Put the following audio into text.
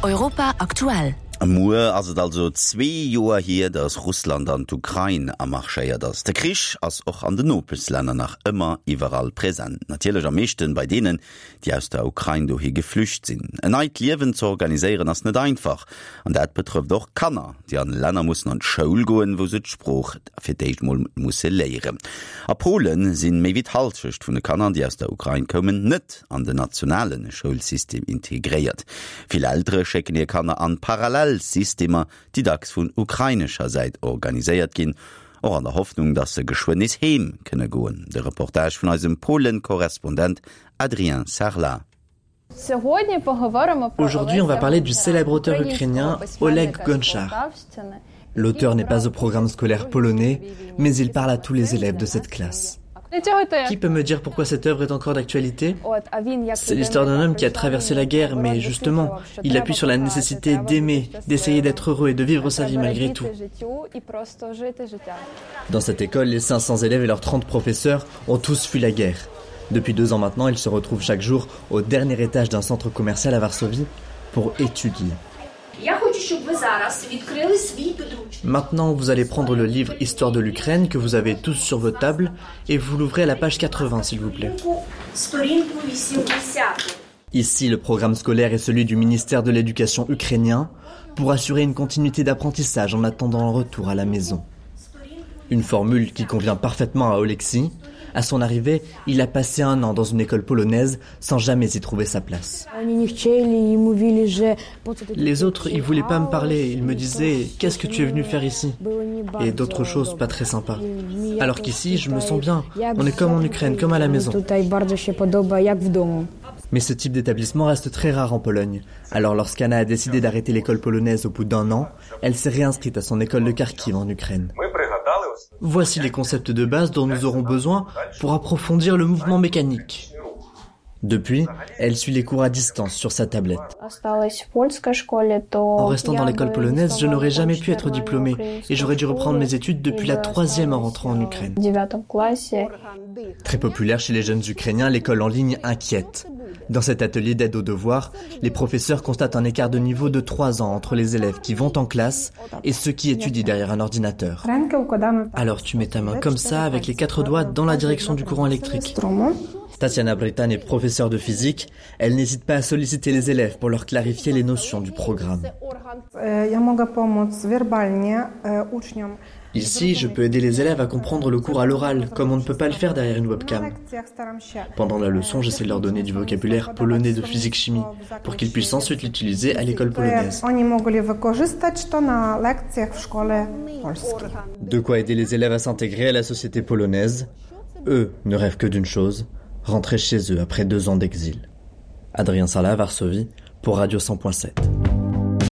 Europa aktuell. Muer ass et also zwee Joer hier, datt Russland an d'Ukrain amarschéiert ass. De Krich ass och an den Nopeschlänner nach ëmmer iwwerall present. Natierlech am meeschten bei deenen, déi aus der Ukrain dohi geflücht sinn. En neit Liewen ze organiséieren ass net einfach. An dat betrëfft och Kanner, déi an Länner mussen an d'Schoul goen, wou se d'Sprooch fir d'éischt mol musse léieren. A Polen sinn méi wéi d'Hallschecht vun de Kanner, déi aus der Ukrain koumen, net an den nationale Schoulsystem integréiert. Vill Eltere schécken hir Kanner an Parallelsystemer, déi dacks vun ukrainescher Säit organiséiert ginn, och an der Hoffnung, datt se geschwënn nees heem kënne goen. De Reportage vun eisem Polen-Korrespondent Adrien Sarlat. Aujourd'hui, on va parler du célèbre auteur ukrainien Oleg Gonchar. L'auteur n'est pas au programme scolaire polonais, mais il parle à tous les élèves de cette classe. Qui peut me dire pourquoi cette œuvre est encore d'actualité C'est l'histoire d'un homme qui a traversé la guerre, mais justement, il appuie sur la nécessité d'aimer, d'essayer d'être heureux et de vivre sa vie malgré tout. Dans cette école, les 500 élèves et leurs 30 professeurs ont tous fui la guerre. Depuis deux ans maintenant, ils se retrouvent chaque jour au dernier étage d'un centre commercial à Varsovie pour étudier. Maintenant, vous allez prendre le livre Histoire de l'Ukraine que vous avez tous sur votre table et vous l'ouvrez à la page 80, s'il vous plaît. Ici, le programme scolaire est celui du ministère de l'Éducation ukrainien pour assurer une continuité d'apprentissage en attendant le retour à la maison. Une formule qui convient parfaitement à Oleksiy. À son arrivée, il a passé un an dans une école polonaise sans jamais y trouver sa place. Les autres, ils voulaient pas me parler, ils me disaient qu'est-ce que tu es venu faire ici et d'autres choses pas très sympas. Alors qu'ici, je me sens bien, on est comme en Ukraine, comme à la maison. Mais ce type d'établissement reste très rare en Pologne. Alors lorsqu'Anna a décidé d'arrêter l'école polonaise au bout d'un an, elle s'est réinscrite à son école de Kharkiv en Ukraine. Voici les concepts de base dont nous aurons besoin pour approfondir le mouvement mécanique. Depuis, elle suit les cours à distance sur sa tablette. En restant dans l'école polonaise, je n'aurais jamais pu être diplômée et j'aurais dû reprendre mes études depuis la troisième en rentrant en Ukraine. Très populaire chez les jeunes Ukrainiens, l'école en ligne inquiète. Dans cet atelier d'aide aux devoirs, les professeurs constatent un écart de niveau de trois ans entre les élèves qui vont en classe et ceux qui étudient derrière un ordinateur. Alors tu mets ta main comme ça avec les quatre doigts dans la direction du courant électrique. Tatiana Britan est professeure de physique. Elle n'hésite pas à solliciter les élèves pour leur clarifier les notions du programme. Ici, je peux aider les élèves à comprendre le cours à l'oral, comme on ne peut pas le faire derrière une webcam. Pendant la leçon, j'essaie de leur donner du vocabulaire polonais de physique-chimie, pour qu'ils puissent ensuite l'utiliser à l'école polonaise. De quoi aider les élèves à s'intégrer à la société polonaise. Eux ne rêvent que d'une chose, rentrer chez eux après deux ans d'exil. Adrien Sala, Varsovie, pour Radio 100.7.